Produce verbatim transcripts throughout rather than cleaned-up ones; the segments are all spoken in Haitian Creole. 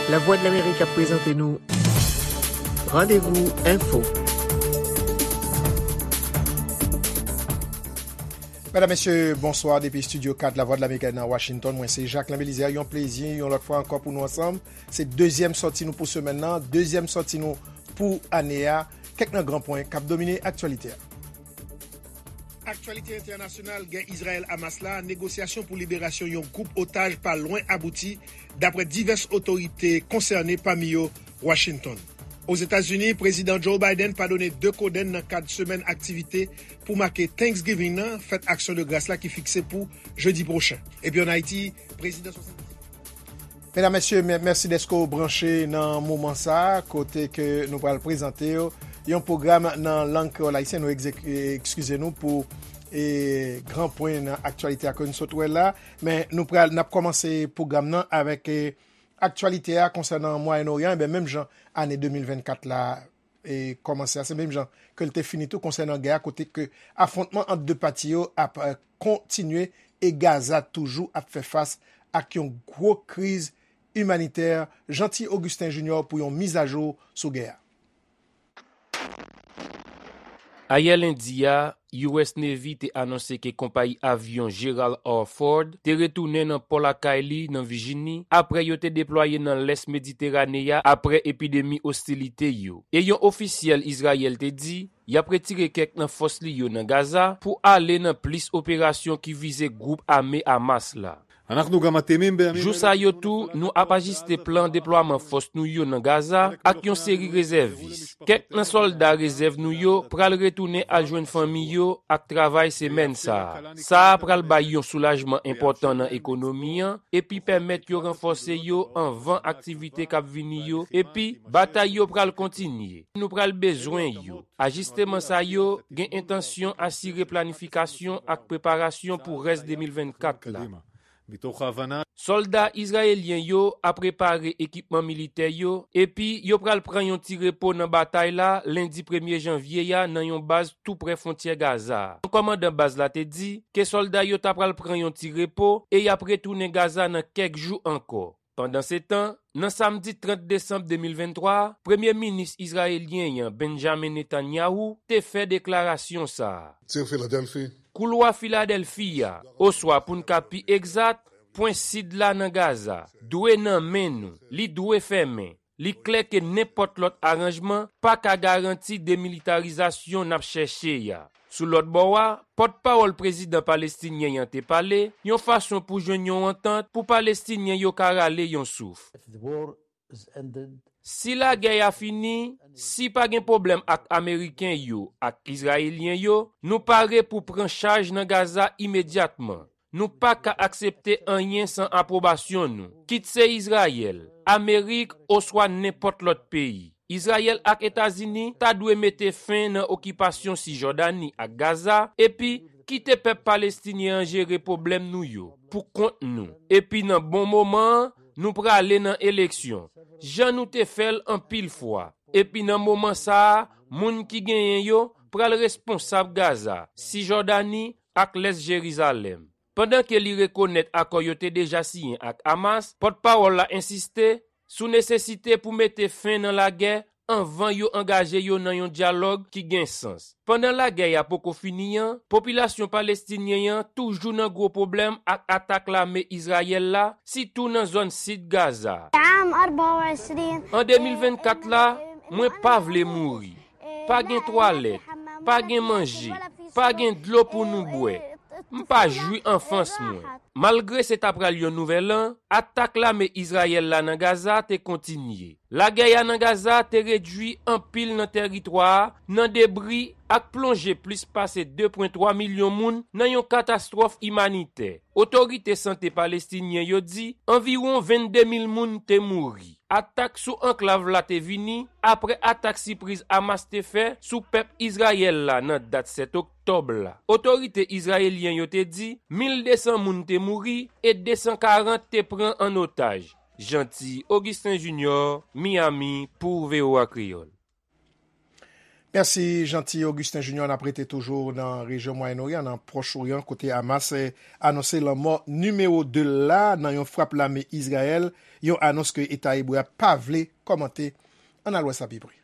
Lavwadlamerik ap prezante nou Randevou Enfo. Medam, mesye, bonswa depi Estidyo kat Lavwadlamerik nan Washington. Mwen se Jacquelin Belizaire. Yon plezi, yon lòt fwa ankò pou nou ansanm. Se dezyèm sòti nou pou semèn nan, dezyèm sòti nou pou ane a. Kèk nan gran pwen k ap domine aktyalite a. Aktyalite entènasyonal, gè Izrayèl-Hamas la, negosyasyon pou liberasyon yon gwoup otaj pa lwen abouti, dapre divès otorite konsène, pami yo Washington. Ozetazini, Prezidan Joe Biden padone de kodenn nan kad semèn aktivite pou make Thanksgiving nan, fèt aksyon de gras la ki fikse pou jedi pwochen. Epi ann Ayiti, Prezidan Medam, mesye, mè- mèsi dèske w branche nan moman sa a, kote ke nou pral prezante w yon pwogram nan lang kreyòl ayisyen. Nou egze- ekskize nou pou e, gran pwen nan aktyalite a ke nou sot wè la. Men nou pral, n ap kòmanse pwogram nan avèk e, aktyalite a konsènan Mwayen Oryan. Enben, menm jan ane de mil vennkat la e, kòmanse a, se menm jan ke l te fini tou konsènan gè a, kote ke afwontman ant de pati yo ap e, kontinye e Gaza toujou ap fè fas ak yon gwo kriz imanitè. Jeanty Augustin Junior pou yon mizajou sou gè a. Ayè lendi a, U S Navy te anonse ke konpayi avyon Gerald R. Ford te retounen nan pò lakay li nan Vijini apre yo te deplwaye nan lès Mediterane a apre epidemi ostilite yo. E yon ofisyèl Izrayèl te di y ap retire kèk nan fòs li yo nan Gaza pou ale nan plis operasyon ki vize gwoup ame Hamas la. Jou sa yo tou, nou ap ajiste plan deplwaman fòs nou yo nan Gaza ak yon seri rezèvis. Kèk nan sòlda rezèv nou yo pral retounen al jwenn fanmi yo ak travay semèn sa a. Sa a pral bay yon soulajman enpòtan nan ekonomi an epi pèmèt yo ranfòse yo anvan aktivite k ap vini yo, epi batay yo pral kontinye. Nou pral bezwen yo. Ajisteman sa yo gen entansyon asire planifikasyon ak preparasyon pou rès de mil vennkat la. Sòlda izrayelyen yo ap repare ekipman militè yo, epi yo pral pran yon ti repo nan batay la lendi premye janvye a nan yon baz tou prè fwontyè Gaza a. Yon kòmandan baz la te di ke sòlda yo ta pral pran yon ti repo e y ap retounen Gaza nan kèk jou ankò. Pandansetan, nan samdi trant desanm de mil venntwa a, Premye Minis izrayelyen an, Benjamin Netanyahu, te fè deklarasyon sa a. Koulwa Filadèlfi a, oswa pou n ka pi egzat, pwen sid la nan Gaza, dwe nan men nou, li dwe fèmen. Li klè ke nenpòt lòt aranjman pa ka garanti demilitarizasyon n ap chèche a. Sou lòt bò a, pòtpawòl prezidan palestinyen an te pale yon fason pou jwenn yon antant pou Palestinyen yo ka rale yon souf. Si lagè a fini, si pa gen pwoblèm ak Ameriken yo ak Izrayelyen yo, nou pare pou pran chaj nan Gaza imedyatman. Nou pa ka aksepte anyen san apwobasyon nou, kit se Izrayèl, Amerik oswa nenpòt lòt peyi. Izrayèl ak Etazini ta dwe mete fen nan okipasyon Sijòdani ak Gaza epi kite pèp palestinyen an jere pwoblèm nou yo pou kont nou. Epi nan bon moman an, nou prale nan eleksyon, jan nou te fè l anpil fwa. Epi nan moman sa a, moun ki genyen yo pral responsab Gaza, Sijòdani ak lès Jerizalèm. Pandan ke li rekonèt akò yo te deja siyen ak Hamas, pòtpawòl la ensiste sou nesesite pou mete fen nan lagè anvan yo angaje yo nan yon dyalòg ki gen sans. Pandan lagè a poko fini an, popilasyon palestinyen an toujou nan gwo pwoblèm ak atak lame Izrayèl la, sitou nan zòn sid Gaza. An de mil vennkat la, mwen pa vle mouri. Pa gen twalèt, pa gen manje, pa gen dlo pou nou bwè. M pa jwi anfans mwen. Malgre se ta pral yon nouvèl an, atak lame Izrayèl la nan Gaza te kontinye. Lagè a nan Gaza te redwi anpil nan tèritwa a nan debri ak plonje plis pase de pwen twa milyon moun nan yon katastwòf imanitè. Otorite sante palestinyen yo di anviwon vennde mil moun te mouri. Atak sou anklav la te vini apre atak sipriz Hamas te fè sou pèp Izrayèl la nan dat sèt oktòb la. Otorite izrayelyen yo te di mil de san moun te mouri e de san karant te pran an otaj. Jeanty Augustin Junior, Miami, pou V O A Kreyòl. Mèsi, Jeanty Augustin Junior. N ap rete toujou nan rejyon Mwayen Oryan, nan Pwòch Oryan, kote Hamas, eh, anonse lanmò nimewo de l la nan yon frap lame Izrayèl, yon anons ke Eta Ebre a pa vle kòmante. Ann al wè sa pi pre.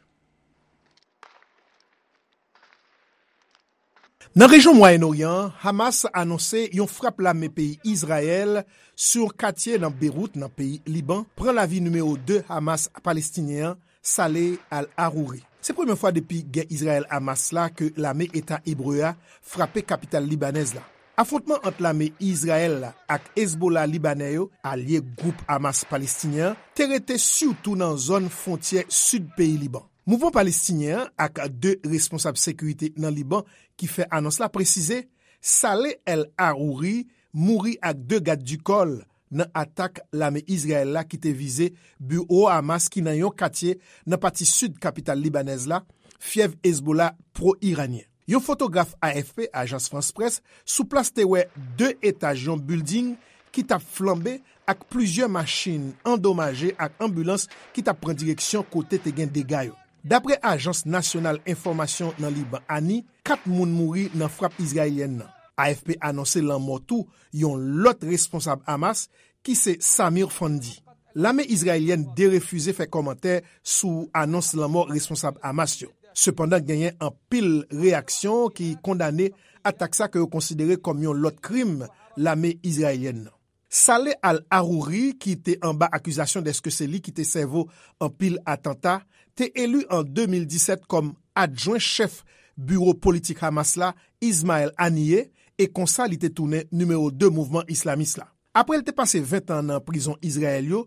Nan rejyon Mwayen Oryan an, Hamas anonse yon frap lame peyi Izrayèl sou yon katye nan Bewout, nan peyi Liban, pran lavi nimewo de Hamas palestinyen an, Saleh al-Arouri. Se premye fwa depi gè Izrayèl-Hamas la ke lame Eta Ebre a frape kapital libanèz la. Afwontman ant lame Izrayèl la ak Hezbollah libanè yo, alye gwoup Hamas palestinyen an, te rete sitou nan zòn fwontyè sid peyi Liban. Mouvman palestinyen an ak de responsab sekirite nan Liban ki fè anons la presize Saleh El Arouri mouri ak de gad di kò l nan atak lame Izrayèl la ki te vize biwo Hamas ki nan yon katye nan pati sid kapital libanèz la, fyèv Hezbollah pwo-iranyen. Yon fotograf A F P, Ajans Frans Près, sou plas te wè de etaj yon bilding ki t ap flanbe ak plizyè machin andomaje ak anbilans ki t ap pran direksyon kote te gen dega yo. Dapre Ajans Nasyonal Enfòmasyon nan Liban, ani, kat moun mouri nan frap izrayelyèn nan. A F P anonse lanmò tou yon lòt responsab Hamas ki se Samir Fandi. Lame izrayelyèn derefize fè kòmantè sou anons lanmò responsab Hamas yo. Sepandan, genyen anpil reyaksyon ki kondane atak sa ke yo konsidere kòm yon lòt krim lame izrayelyèn nan. Saleh al-Arouri, ki te anba akizasyon dèske se li ki te sèvo anpil atanta, te eli an de mil disèt kòm adjwen chèf biwo politik Hamas la, Ismail Haniyeh, e konsa li te tounen nimewo de mouvman islamis la. Apre l te pase ven tan nan prizon Izrayèl yo,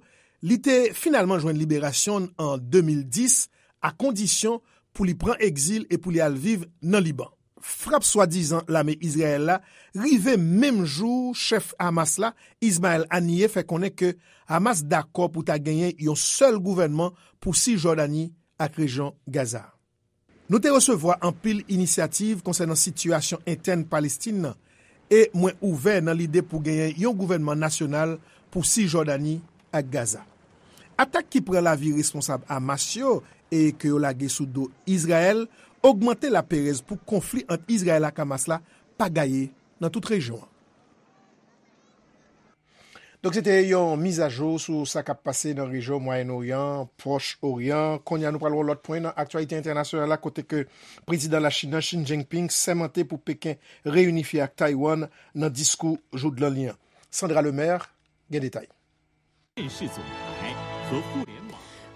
li te finalman jwenn liberasyon l an de mil dis, a kondisyon pou li pran egzil e pou li al viv nan Liban. Frap swadizan lame Izrayèl la rive menm jou chèf Hamas la, Ismail Haniyeh, fè konnen ke Hamas dakò pou ta genyen yon sèl gouvènman pou Sijòdani ak rejyon Gaza. Nou te resevwa anpil inisyativ konsènan sitiyasyon entèn Palestin nan, e mwen ouvè nan lide pou genyen yon gouvènman nasyonal pou Sijòdani ak Gaza. Atak ki pran lavi responsab Hamas yo e ke yo lage sou do Izrayèl ogmante laperèz pou konfli ant Izrayèl ak Hamas la pa gaye nan tout rejyon an. Donk, se te yon mizajou sou sa k ap pase nan rejyon Mwayen Oryan, Pwòch Oryan. Kounye a, nou pral wè lòt pwen nan aktyalite entènasyonal la, kote ke prezidan Lachin nan, Xi Jinping, sèmante pou Peken reyinifye ak Taiwan nan diskou joudlan li an. Sandra Lemaire gen detay.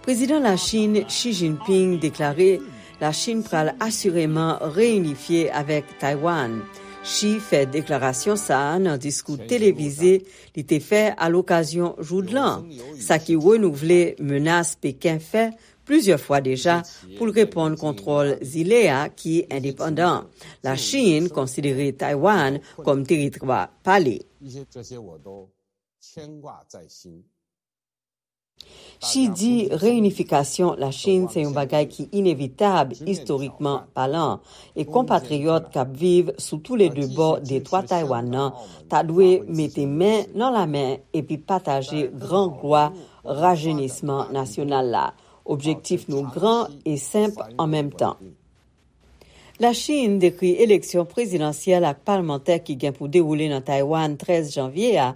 Prezidan Lachin Xi Jinping deklare Lachin pral asireman reyinifye avèk Taiwan. Xi fè deklarasyon sa a nan diskou televize li te fè alokazyon joudlan, sa ki renouvle menas Peken fè plizyè fwa deja pou l reponn kontwòl zile a ki endepandan. Lachin konsidere Taiwan kòm teritwa pa li. Xi di reyinifikasyon Lachin se yon bagay ki inevitab istorikman palan, e konpatriyòt k ap viv sou toulede bò detwa Taiwan nan ta dwe mete men nan lamen epi pataje gran glwa rajenisman nasyonal la. Objektif nou gran e senp an menm tan. Lachin dekri eleksyon prezidansyèl ak palmantè ki gen pou dewoule nan Taiwan trèz janvye a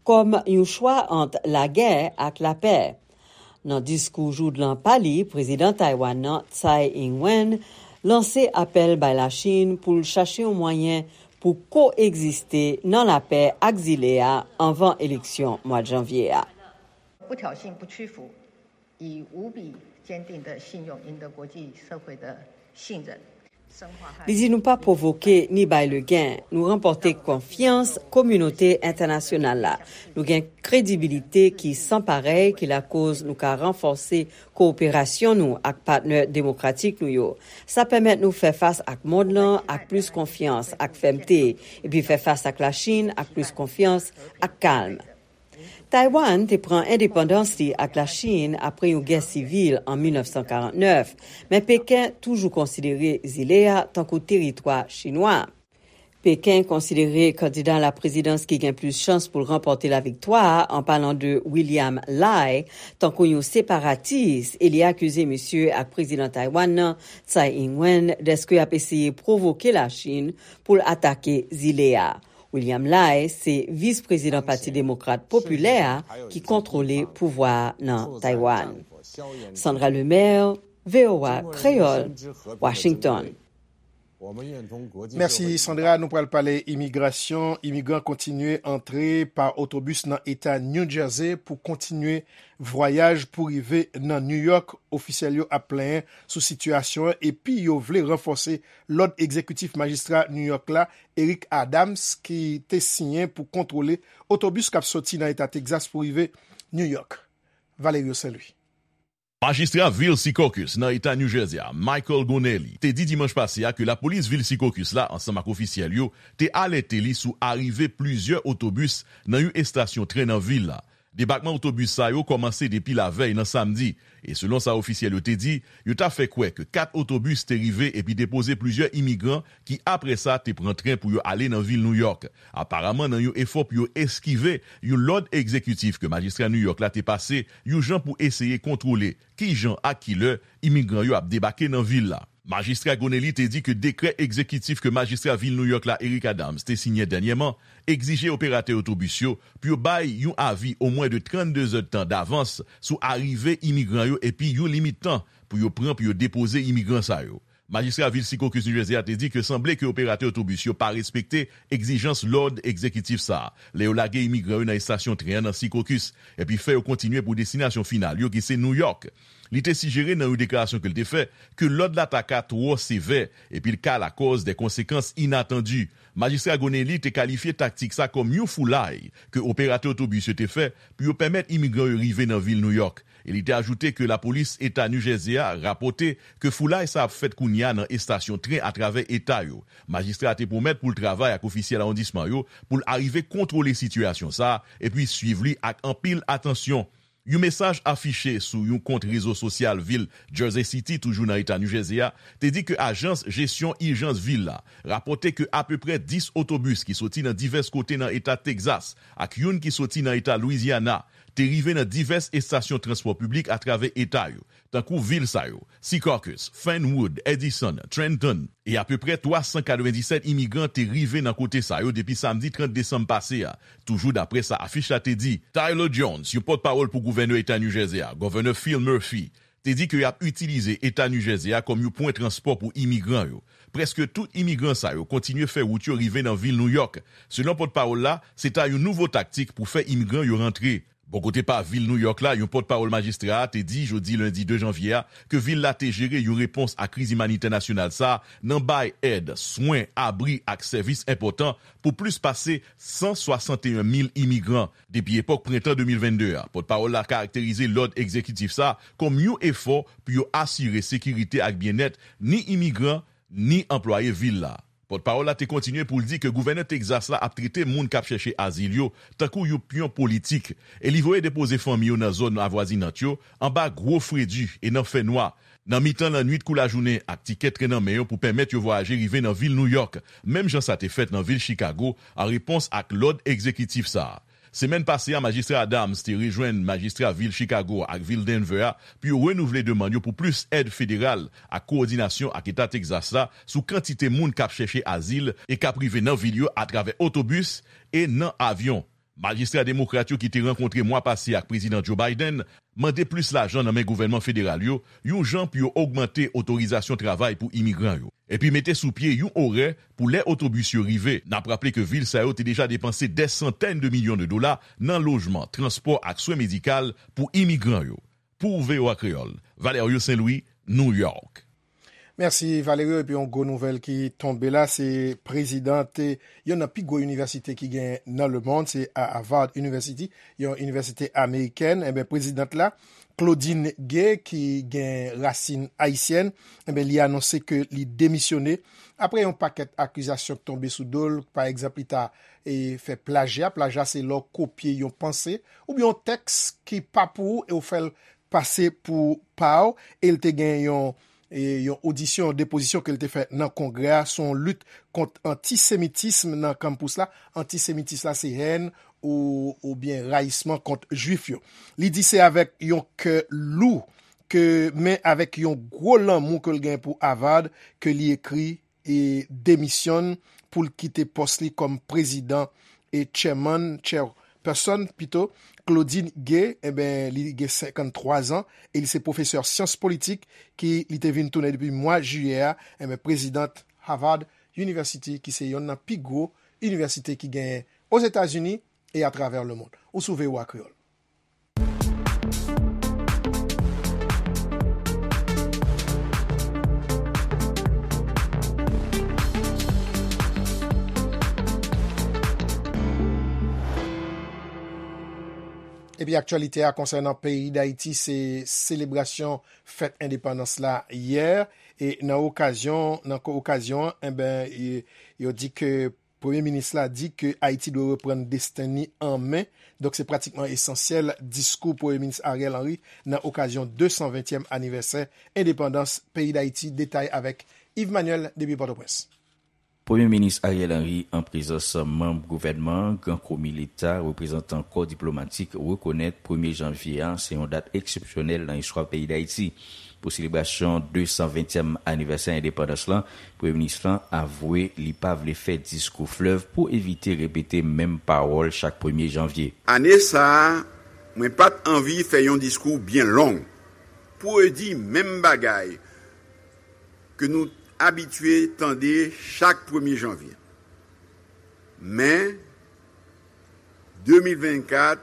kòm yon chwa ant lagè ak lapè. Nan diskou joudlan pa li, prezidan Taiwan nan, Tsai Ing-wen, lanse apèl bay Lachin pou l chache yon mwayen pou ko-egziste nan lapè ak zile a anvan eleksyon mwa janvye a. 不挑衅、不屈服，以无比坚定的信用赢得国际社会的信任。 Li di nou pa pwovoke ni bay legen, nou ranpòte konfyans kominote entènasyonal la. Nou gen kredibilite ki san parèy ki lakoz nou ka ranfòse kowoperasyon nou ak patnè demokratik nou yo. Sa pèmèt nou fè fas ak mond lan ak plis konfyans ak fèmte, epi fè fas ak Lachin ak plis konfyans ak kalm. Taiwan te pran endepandans li ak Lachin apre yon gè sivil an mil nèf san karant nèf, men Peken toujou konsidere zile a tankou teritwa chinwa. Peken konsidere kandida laprezidans ki gen plis chans pou l ranpòte laviktwa a, an palan de William Lai, tankou yon separatis, e li akize misye ak prezidan Taiwan nan, Tsai Ing-wen, dèske y ap eseye pwovoke Lachin pou l atake zile a. William Lai se vis prezidan Pati Demokrat Popilè a ki kontwole pouvwa a nan Taiwan. Sandra Lemaire, V O A Kreyòl, Washington. Mèsi Sandra, nou pral pale imigrasyon. Imigran kontinye antre pa otobis nan eta New Jersey pou kontinye vwayaj pou rive nan New York. Ofisyèl yo ap plenyen sou sitiyasyon an epi yo vle ranfòse lòd egzekitif majistra New York la, Eric Adams, ki te siyen pou kontwole otobis k ap soti nan eta Texas pou rive New York. Valerio Saint Louis. Majistra vil Secaucus nan eta New Jersey a, Michael Gonelli, te di dimanch pase a ke lapolis vil Secaucus la, ansanm ak ofisyèl yo, te alète li sou arive plizyè otobis nan yon estasyon tren nan vil la. Debakman otobis sa yo kòmanse depi lavèy nan samdi, e selon sa ofisyèl yo te di, yo ta fè kwè ke kat otobis te rive epi depoze plizyè imigran ki apre sa te pran tren pou yo ale nan vil Nouyòk. Aparaman nan yon efò pou yo eskive yon lòd egzekitif ke majistra Nouyòk la te pase, yon jan pou eseye kontwole kijan ak kilè imigran yo ap debake nan vil la. Majistra Gonelli te di ke dekrè egzekitif ke majistra vil Nouyòk la, Eric Adams, te siyen dènyèman, egzije operatè otobis yo pou yo bay yon avi omwen de trannde zèdtan davans sou arive imigran yo epi yon limit tan pou yo pran pou yo depoze imigran sa yo. Majistra vil Secaucus New Jersey a te di ke sanble ke operatè otobis yo pa respekte egzijans lòd egzekitif sa a lè yo lage imigran yo nan estasyon tren an nan Secaucus, epi fè yo kontinye pou destinasyon final yo ki se Nouyòk. Li te sijere nan yon deklarasyon ke l te fè ke lòd la ta ka twò sevè epi l ka lakòz de konsekans inatandi. Majistra Gonelli te kalifye taktik sa kòm yon foulay ke operatè otobis yo te fè pou yo pèmèt imigran yo rive nan vil Nouyòk, e li te ajoute ke lapolis eta New Jersey a rapòte ke foulay sa ap fèt kounye a nan estasyon tren atravè eta yo. Majistra a te pwomèt pou l travay ak ofisyèl awondisman yo pou l arive kontwole sitiyasyon sa a epi swiv li ak anpil atansyon. Yon mesaj afiche sou yon kont rezo sosyal vil Jersey City, toujou nan eta New Jersey a, te di ke ajans jesyon ijans vil la rapòte ke apeprè dis otobis ki soti nan divès kote nan eta Texas ak youn ki soti nan eta Louisiana te rive nan divès estasyon transpò piblik atravè eta yo, tankou vil sa yo, Secaucus, Fernwood, Edison, Trenton, e apeprè twa san katrevenndisèt imigran te rive nan kote sa yo depi samdi trant desanm pase a, toujou daprè sa afich la te di. Tyler Jones, yon pòtpawòl pou gouvènè eta New Jersey a, Gòvènè Phil Murphy, te di ke y ap itilize eta New Jersey a kòm yon pwen transpò pou imigran yo. Prèske tout imigran sa yo kontinye fè wout yo rive nan vil Nouyòk. Selon pòtpawòl la, se ta yon nouvo taktik pou fè imigran yo rantre. Bò kote pa vil Nouyòk la, yon pòtpawòl majistra a te di jodi lendi de janvye a ke vil la te jere yon repons a kriz imanitè nasyonal sa a nan bay èd, swen, abri ak sèvis enpòtan pou plis pase san swasanteyen mil imigran depi epòk prentan de mil vennde a. Pòtpawòl la karakterize lòd egzekitif sa a kòm yon efò pou yo asire sekirite ak byennèt ni imigran ni anplwaye vil la. Pòtpawòl la te kontinye pou l di ke gouvènè Texas la ap trete moun k ap chèche azil yo tankou yon pyon politik, e li voye depoze fanmi yo nan zòn avwazinant yo, anba gwo fredi e nan fènwa, nan mitan lannwit kou lajounen ak tikè tren nan men yo pou pèmèt yo vwayaje rive nan vil Nouyòk, menm jan sa te fèt nan vil Chicago an repons ak lòd egzekitif sa a. Semèn pase a, Majistra Adams te rejwenn majistra vil Chicago ak vil Denver a pou yo renouvle demann yo pou plis èd federal ak kowòdinasyon ak Eta Texas la sou kantite moun k ap chèche azil e k ap rive nan vil yo atravè otobis e nan avyon. Majistra demokrat yo ki te rankontre mwa pase ak Prezidan Joe Biden mande plis lajan nan men gouvènman federal yo, yon jan pou yo ogmante otorizasyon travay pou imigran yo, epi mete sou pye yon orè pou lè otobis yo rive. N ap raple ke vil sa yo te deja depanse dè santèn de milyon de dola nan lojman, transpò ak swen medikal pou imigran yo. Pou V O A Kreyòl, Valerio Saint Louis, New York. Mèsi Valerio. Epi yon gwo nouvèl ki tonbe la, se prezidan youn nan pi gwo inivèsite ki gen nan lemonn, se Harvard University, yon inivèsite amerikèn. Enben, prezidan la, Claudine Gay, ki gen rasin ayisyèn, enben, li anonse ke li demisyone apre yon pakèt akizasyon k tonbe sou do l. Pa egzanp, li ta e, fè plajya. Plajya se lè w kopye yon panse oubyen yon tèks ki pa pou ou e w fè l pase pou pa w. E l te gen yon e, yon odisyon, depozisyon ke l te fè nan Kongrè a, se yon lit kont antisemitism nan kanpous la. Antisemitis la, se hèn ou, oubyen rayisman kont Jwif yo. Li di se avèk yon kè lou, ke, men avèk yon gwo lanmou ke l gen pou Harvard, ke li ekri e demisyonn pou l kite pòs li kòm prezidan e chairman, chairperson pito, Claudine Gay, enben, li gen senkanntwa zan e li se pwofesè syans politik ki li te vin tounen depi mwa jiyè a, enben, prezidant Harvard University, ki se yonn nan pi gwo inivèsite ki genyen Ozetazini e atravè lemonn. Ou sou V O A Kreyòl. Epi aktyalite a konsènan peyi Dayiti, se selebrasyon fèt endepandans la yè, e nan okazyon, nan ko-, okazyon an, enben, e, yo di ke Premye minis la di ke Ayiti dwe reprann desten ni an men. Donk, se pratikman esansyèl diskou Premye minis Ariel Henry nan okazyon de san ventyèm anivèsè endepandans peyi Dayiti. Detay avèk Yves Manuel depi Pòtoprens. Premye minis Ariel Henry, an prezans manm gouvènman an, gran komi leta, reprezantan kò diplomatik, rekonèt premye janvye a se yon dat eksepsyonèl nan istwa peyi Dayiti. Pou selebrasyon de san ventyèm anivèsè endepandans lan, Premye minis lan avwe li pa vle fè diskou flèv pou evite repete menm pawòl chak premye janvye. Ane sa a, mwen pa t anvi fè yon diskou byen long pou redi menm bagay ke nou abitye tande chak premye janvye. Men, de mil vennkat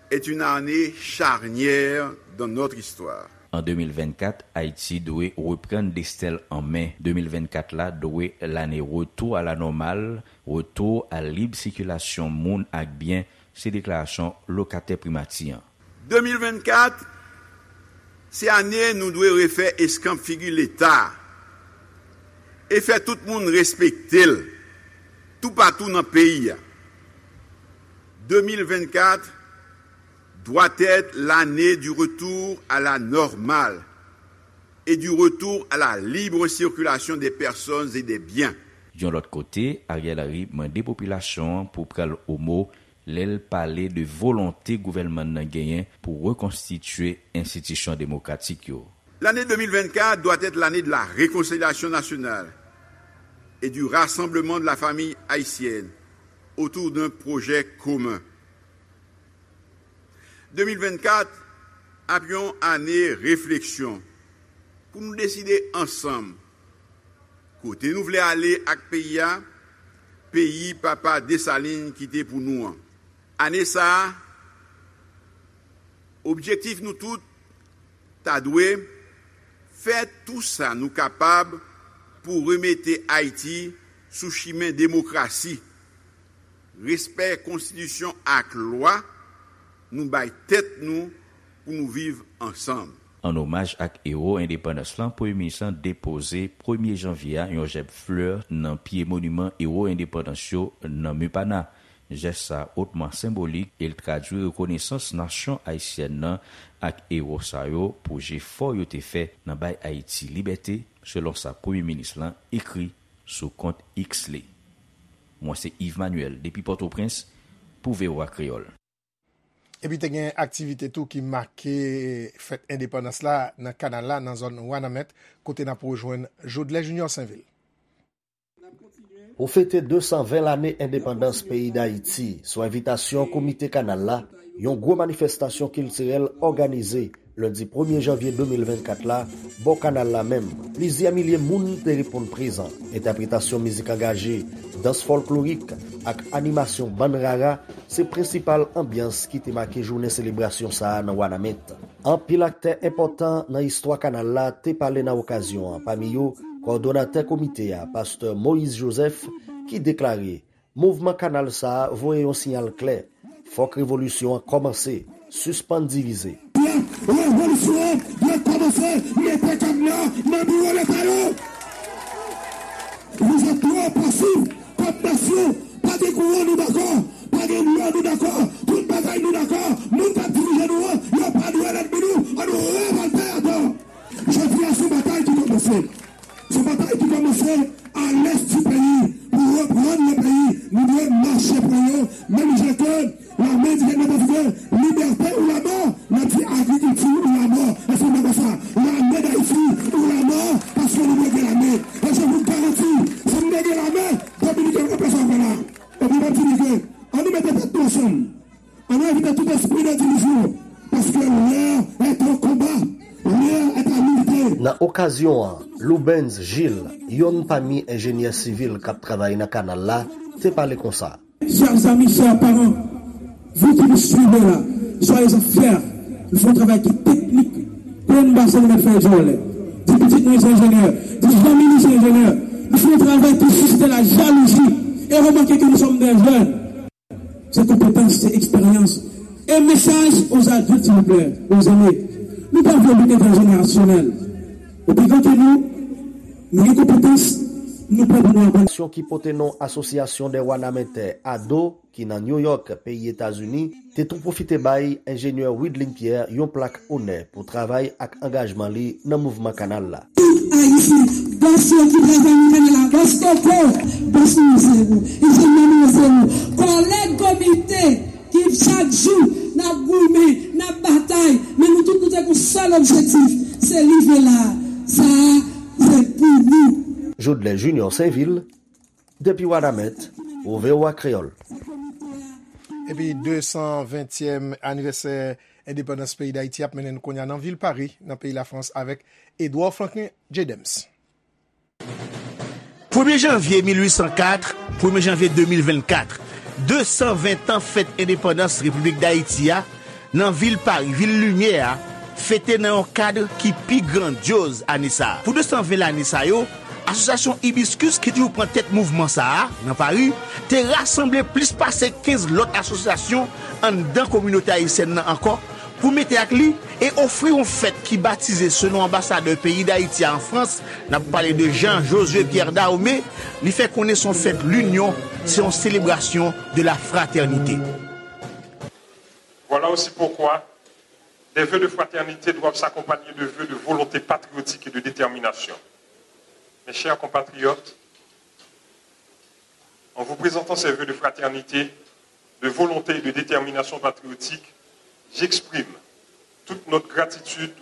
est une année charnière dans notre histoire. An de mil vennkat, Ayiti dwe reprann desten l an men. De mil vennkat la dwe lane retour à la normale, retour à libre circulation moun ak byen, se deklarasyon lokatè primati an. De mil vennkat, se ane nou dwe refè eskanp figi Leta e fè tout moun respekte l toupatou nan peyi a. De mil vennkat doit être l'année du retour à la normale et du retour à la libre circulation des personnes et des biens. Yon lòt kote, Ariel Henry mande popilasyon an pou pran l o mo lè l pale de volonte gouvènman nan genyen pou rekonstitye enstitisyon demokratik yo. L'année deux mille vingt-quatre doit être l'année de la réconciliation nationale et du rassemblement de la famille haïtienne autour d'un projet commun. De mil vennkat ap yon ane refleksyon pou nou deside ansanm kote nou vle ale ak peyi a, peyi papa Desalin kite pou nou an. Ane sa a, objektif nou tout ta dwe fè tou sa nou kapab pou remete Ayiti sou chimen demokrasi, respè konstitisyon ak lwa nou bay tèt nou pou nou viv ansanm. An omaj ak ewo endepandans lan, Premye Minis lan depoze premye janvye a yon jèb flè nan pye moniman ewo endepandans yo nan Mepana. Jès sa a otman senbolik e l tradui rekonesans nasyon ayisyèn nan ak ewo sa yo pou jefò yo te fè nan bay Ayiti libète, selon sa Premye Minis lan ekri sou kont X li. Mwen se Yves Manuel depi Pòtoprens pou V O A Kreyòl. Epi te gen aktivite tou ki make fèt endepandans la nan kanal la, nan zòn Wanament, kote n ap rejwenn Jodlè Junior Sainvil. Pou fete de san ven lane endepandans peyi Dayiti, sou envitasyon Komite Kanal la, yon gwo manifestasyon kiltirèl òganize lendi premye janvye de mil vennkat la, bò kanal la menm. Plizyè milye moun te reponn prezan. Entèpretasyon mizik angaje, dans fòlklorik ak animasyon bann rara se prensipal anbyans ki te make jounen selebrasyon sa a nan Wanament. Anpil aktè enpòtan nan istwa kanal la te pale nan okazyon an, pami yo kòdonatè komite a, pastè Moïse Joseph, ki deklare mouvman kanal sa a voye yon siyal klè, fòk revolisyon an kòmanse, sispann divize. Revolisyon an dwe kòmanse, mete kadna nan biwo Leta yo. Vous êtes trop passifs kòm nasyon. Pa gen kouran, nou dakò. Pa gen dlo, nou dakò. Tout bagay, nou dakò. Moun k ap dirije nou an, yo pa dwe lènmi nou. Ann revòlte atò. Jodi a se yon batay On invite tout esprit de division, parce que l'heure est au combat, l'heure est à l'unité. Nan okazyon an, Loubens Gilles, yonn pami enjenyè sivil k ap travay nan kanal la, te pale konsa. Chers amis, chers parents, vous qui nous suivez là, soyez-en fiers. Nous faisons un travail qui est technique. Plen basen nou mèt fè djòlè. Di pitit nou se enjenyè. Di zanmi nou se enjenyè. Nou fè yon travay ki sisite la jalouzi. E remake ke nou sòm de jèn. Se konpetans, se eksperyans. E mesaj aux adultes, s'il vous plaît, aux aînés. Nou pa vle lite transjenerasyonèl. Ou pi gran ke nou, nou gen konpetans, nou prè pou nou aprann. Ki pote non Asosyasyon dè Wanamenntè, ado, ki nan New York, peyi Etazini, te tou pwofite bay enjenyè Widlin Pierre yon plak onè pou travay ak angajman li nan mouvman kanal la. Tout Ayisyen, bòs yo ki travay nan kanal la, bòs koko, bòs nou se ou, enjenyè nou se ou, kòlèg komite ki chak jou n ap goumen, n ap batay, men nou tout nou te gen yon sèl objektif, se rive la, sa a se pou nou. Jodlè Junior Sainvil, depi Wanament, pou V O A Kreyòl. Epi de san ventyèm anivèsè endepandans peyi Dayiti ap mennen n kounye a nan vil Pari, nan peyi Lafrans, avèk Edouard Franklin J. Dems. Premye janvye mil uit san kat, premye janvye de mil vennkat, de san ven tan fèt endepandans Repiblik Dayiti a, nan vil Pari, vil limyè a, fete nan yon kad ki pi grandyoz ane sa a. Pou de san ven lane sa yo, asosyasyon Hibiscus ki toujou pran tèt mouvman sa a nan Pari, te rasanble plis pase kenz lòt asosyasyon anndan kominote ayisyèn nan ankò pou mete ak li e ofri yon fèt ki batize selon anbasadè peyi Dayiti a an Frans, n ap pale de Jean Josué Pierre Dahomey, li fè konnen se yon fèt linyon, se yon selebrasyon de la fratènite. Voilà aussi pourquoi des vœux de fraternité doivent s'accompagner de vœux de volonté patriotique et de détermination. Mes chers compatriotes, en vous présentant ces vœux de fraternité, de volonté et de détermination patriotique, j'exprime toute notre gratitude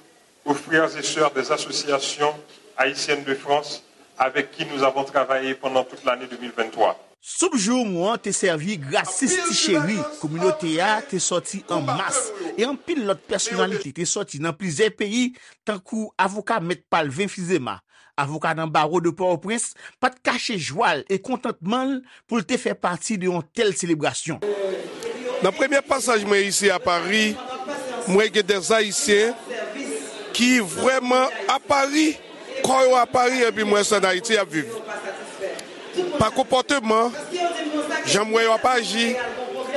aux frères et sœurs des associations haïtiennes de France avec qui nous avons travaillé pendant toute l'année deux mille vingt-trois. Soup joumou an te sèvi gratis ti cheri, kominote a te sòti an mas, e anpil lòt pèsonalite te sòti nan plizyè peyi, tankou avoka Mèt Palvin Fizema, avoka nan bawo de Pòtoprens, pa t kache jwa l e kontantman l pou l te fè pati de yon tèl selebrasyon. Nan premye pasaj mwen isi a Pari, m wè gen dè Ayisyen ki vrèman a Pari, kò yo a Pari, epi m wè se ann Ayiti y ap viv. Pa konpòteman, jan m wè yo ap aji,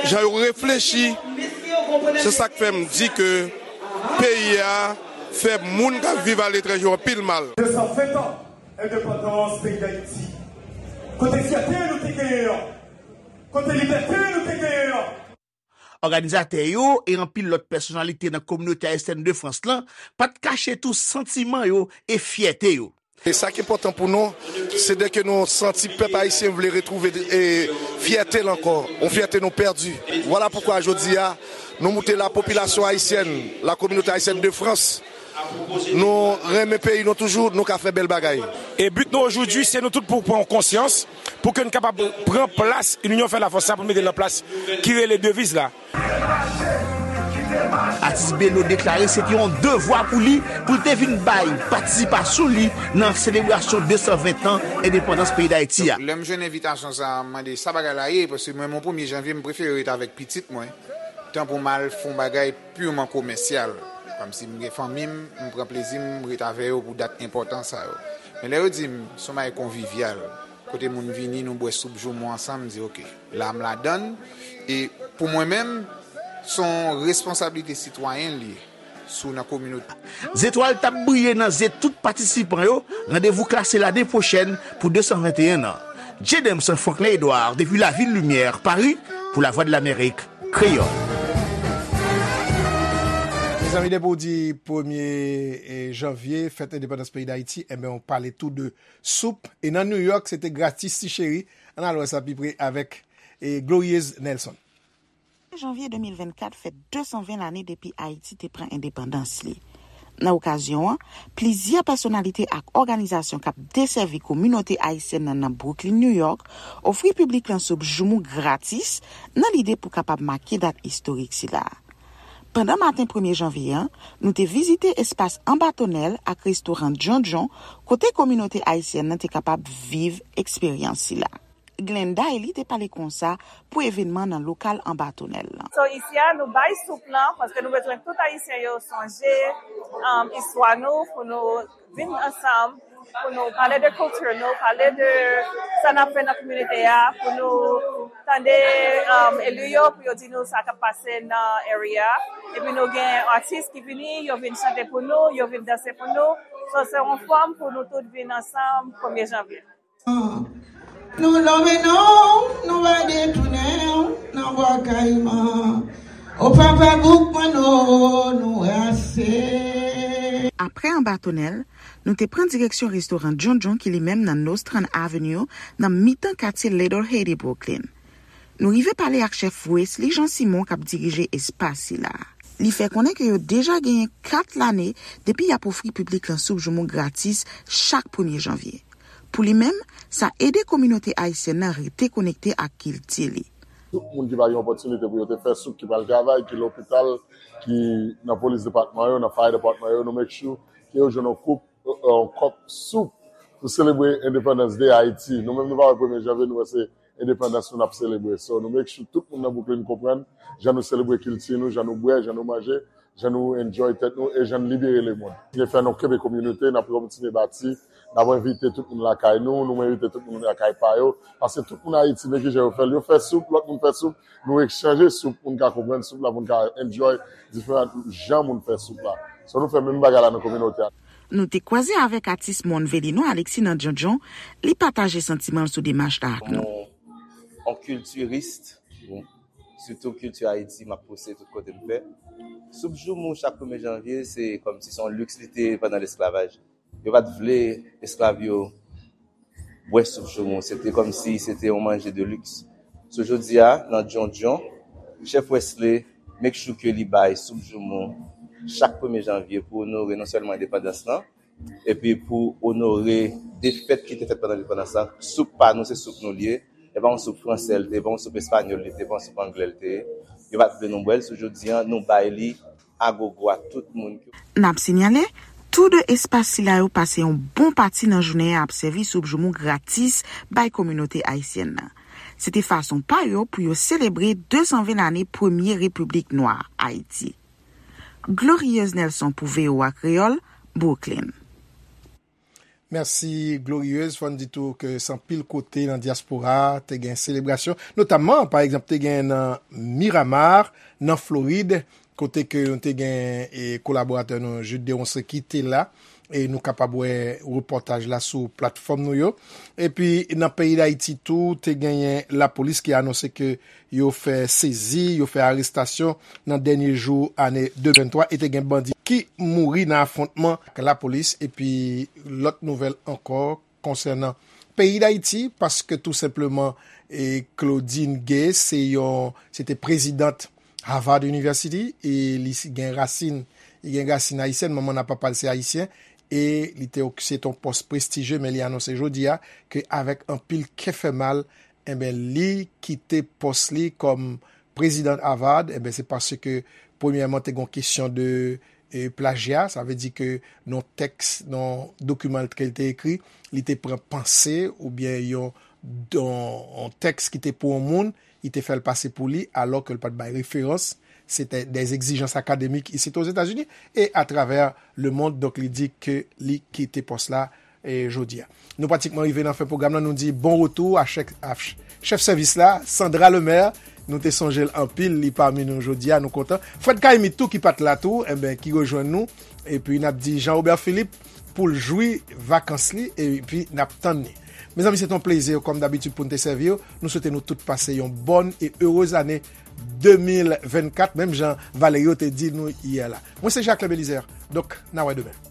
jan yo reflechi, se sa k fè m di ke peyi a fè moun k ap viv aletranje yo anpil mal. De san ven tan endepandans peyi Dayiti. Kote fyète nou te genyen an? Kote libète nou te genyen an? Òganizatè yo e anpil lòt pèsonalite nan kominote ayisyèn de Frans lan pa t kache tou santiman yo e fyète yo. E sa k enpòtan pou nou, se de ke nou santi pèp ayisyen vle retwouve e, fyète l ankò, yon fyète nou pèdi. Vwala poukwa jodi a, nou moute la popilasyon ayisyèn, la communauté haïtienne de France, nou renmen peyi nou toujou, nou ka fè bèl bagay. E but nou aujourd'hui, se nou tout pou pran konsyans, pou ke n kapab pran plas L'union fait la force sa, pou n mete l nan plas ki rele deviz la. Atis Belo deklare se te yon devwa pou li pou l te vin bay patisipasyon li nan selebrasyon de san ven tan endepandans peyi Dayiti a. Lè m jwenn envitasyon sa a, m mande sa bagay la ye, paske mwen menm yon premye janvye m prefere ret avèk pitit mwen, tan pou m al fè yon bagay piman komèsyal. Kòmsi m gen fanmi m, m pran plezi m, m ret avè yo pou dat enpòtan sa yo. Men lè yo di m se yon bagay konvivyal, kote moun vini, nou bwè soup joumou ansanm, m di oke, la m ladann. E pou mwen menm, se yon responsablite sitwayen li ye, si w nan kominote. Zetwal t ap briye nan zye tout patisipan yo, randevou klase lane pwochèn pou de san venteyen an. J. Demson Franklin Edouard depi Lavil Limyè, Pari, pou Lavwadlamerik Kreyòl. Mezanmi, depi w di premye janvye, fèt endepandans peyi Dayiti, enben, w pale tou de soup. E nan New York, se te gratis ti cheri. Ann al wè sa pi pre avèk Glorieuse Nelson. Janvye de mil vennkat fèt de san ven lane depi Ayiti te pran endepandans li. Nan okazyon an, plizyè pèsonalite ak òganizasyon k ap desèvi kominote ayisyèn nan nan Brooklyn, New York, ofri piblik lan soup joumou gratis nan lide pou kapab make dat istorik sila. Pandan maten premye janvye an, nou te vizite espas Anba Tonèl ak restoran Djondjon, kote kominote ayisyèn nan te kapab viv eksperyans sila. Glenda Eli te pale konsa pou evènman nan lokal Anba Tonèl lan. So, isi a, nou bay soup lan, paske nou bezwen tout Ayisyen yo sonje, um, istwa nou, pou nou vin ansanm, pou nou pale de kilti nou, pale de sa n ap fè nan kominote a, pou nou tande, um, eli yo, pou yo di nou sa k ap pase nan area. Epi nou gen atis ki vini, yo vin chante pou nou, yo vin danse pou nou. So, se yon fòm pou nou tout vin ansanm premye janvye. Nou lonmen non, nou va detounen nan bwa kayiman. O papa bouk mwen non, nou rase. Apre Anba Tonèl, nou te pran direksyon restoran Djondjon ki li menm nan Nostrand Avenue, nan mitan katye Little Haiti, Brooklyn. Nou rive pale ak chèf Wesley Jean Simon k ap dirije espas sila. Li fè konnen ke yo deja genyen kat lane depi y ap ofri piblik lan soup joumou gratis chak premye janvye. Pou li menm, sa ede kominote ayisyèn nan rete konekte ak kilti li. Tout moun ki pa gen opòtinite pou yo te fè soup, ki pral travay, ki lopital, ki nan polis depatman yo, nan fire depatman yo, nou make sure ke yo jwenn yon koup, yon kòp soup pou selebre Independence Day Ayiti. Nou menm nou pa wè premye janvye, nou wè se endepandans nou n ap selebre. So, nou make sure tout moun nan Brooklyn konprann jan nou selebre kilti nou, jan nou bwè, jan nou manje, jan nou enjoy tèt nou e jan n libere lemonn. N fè nou kenbe kominote, n ap kontinye bati, n ap envite tout moun lakay nou, nou envite tout moun lakay pa yo, paske tout moun Ayiti, men kijan yo fè l, yo fè soup, lòt moun fè soup, nou ekchanje soup pou n ka konprann soup la, pou n ka enjoy diferan jan moun fè soup la. So, nou fè menm bagay la nan kominote a. Nou te kwaze avèk atis Mòn Velino Alexis nan Djondjon, li pataje santiman l sou demach la ak nou. On, on kiltiris, sitou kilti Ayiti, m ap pouse tout kote m fè. Soup joumou chak premye janvye, se kòmsi se yon liks li te ye pandan lesklavaj. Yo pa t vle esklav yo bwè soup joumou. Se te kòmsi se te yon manje de liks. So, jodi a, nan Djondjon, chèf Wesley make sure ke li bay soup joumou chak premye janvye pou onore non sèlman endepandans lan, epi pou onore defèt ki te fèt pandan endepandans lan. Soup pa nou, se soup nou li ye. E pa yon soup fransè l te ye, e pa yon soup espanyòl li te ye, e pa yon soup anglè l te ye. Yo pa t vle nou bwè l, so jodi a, nou bay li agogo a tout moun. N ap sinyale, tou de espas sila yo pase yon bon pati nan jounen an ap sèvi soup joumou gratis bay kominote ayisyèn nan. Se te fason pa yo pou yo selebre de san ven lane premye repiblik nwa Ayiti. Glorieuse Nelson pou V O A Kreyòl, Brooklyn. Mèsi, Glorieuse. Fò n di tou ke se anpil kote nan dyaspora a te gen selebrasyon, notamman, pa egzanp, te gen nan Miramar, nan Florid, kote ke nou te gen, e, kolaboratè nou, Jude Deronceaux, ki te la, e nou kapab wè repòtaj la sou platfòm nou yo. Epi, nan peyi Dayiti tou, te genyen lapolis ki anonse ke yo fè sezi, yo fè arestasyon nan dènye jou ane de mil venntwa, e te gen bandi ki mouri nan afwontman ak lapolis, epi lòt nouvèl ankò konsènan peyi Dayiti, paske tou senpleman, e, Claudine Gay, se yon, se te prezidant Harvard University, e li si-, gen rasin, li gen rasin ayisyèn, manman l ak papa l se ayisyen, e li te ok-, se te yon pòs prestijye, men li anonse jodi a ke avèk anpil kè fè mal, enben, li kite pòs li kòm prezidan Harvard, enben, se paske, premyèman, te gen yon kesyon de, e, plajya, sa vle di ke nan tèks, nan dokiman ke l te ekri, li te pran panse oubyen yon, yon, yon tèks ki te pou yon moun, li te fè l pase pou li, alò ke l pa t bay referans. Se te dè egzijans akademik isit Ozetazini e atravè lemond. Donk, li di ke li kite pòs la, e, jodi a. Nou pratikman rive nan fen pwogram nan. Nou di bon retou a chèf, a ch-, chèf sèvis la, Sandra Lemaire. Nou te sonje l anpil, li pami nou jodi a, nou kontan. Fred Caïmy tou ki pa t la tou, enben, ki rejwenn nou. Epi n ap di Jean Robert Philippe pou l jwi vakans li, epi n ap tann li. Mezanmi, se te yon plezi, kòm dabitid, pou n te sèvi w. Nou swete nou tout pase yon bòn e erez ane de mil vennkat, menm jan Valerio te di nou yè la. Mwen se Jacques Belizaire. Donk, n a wè demen.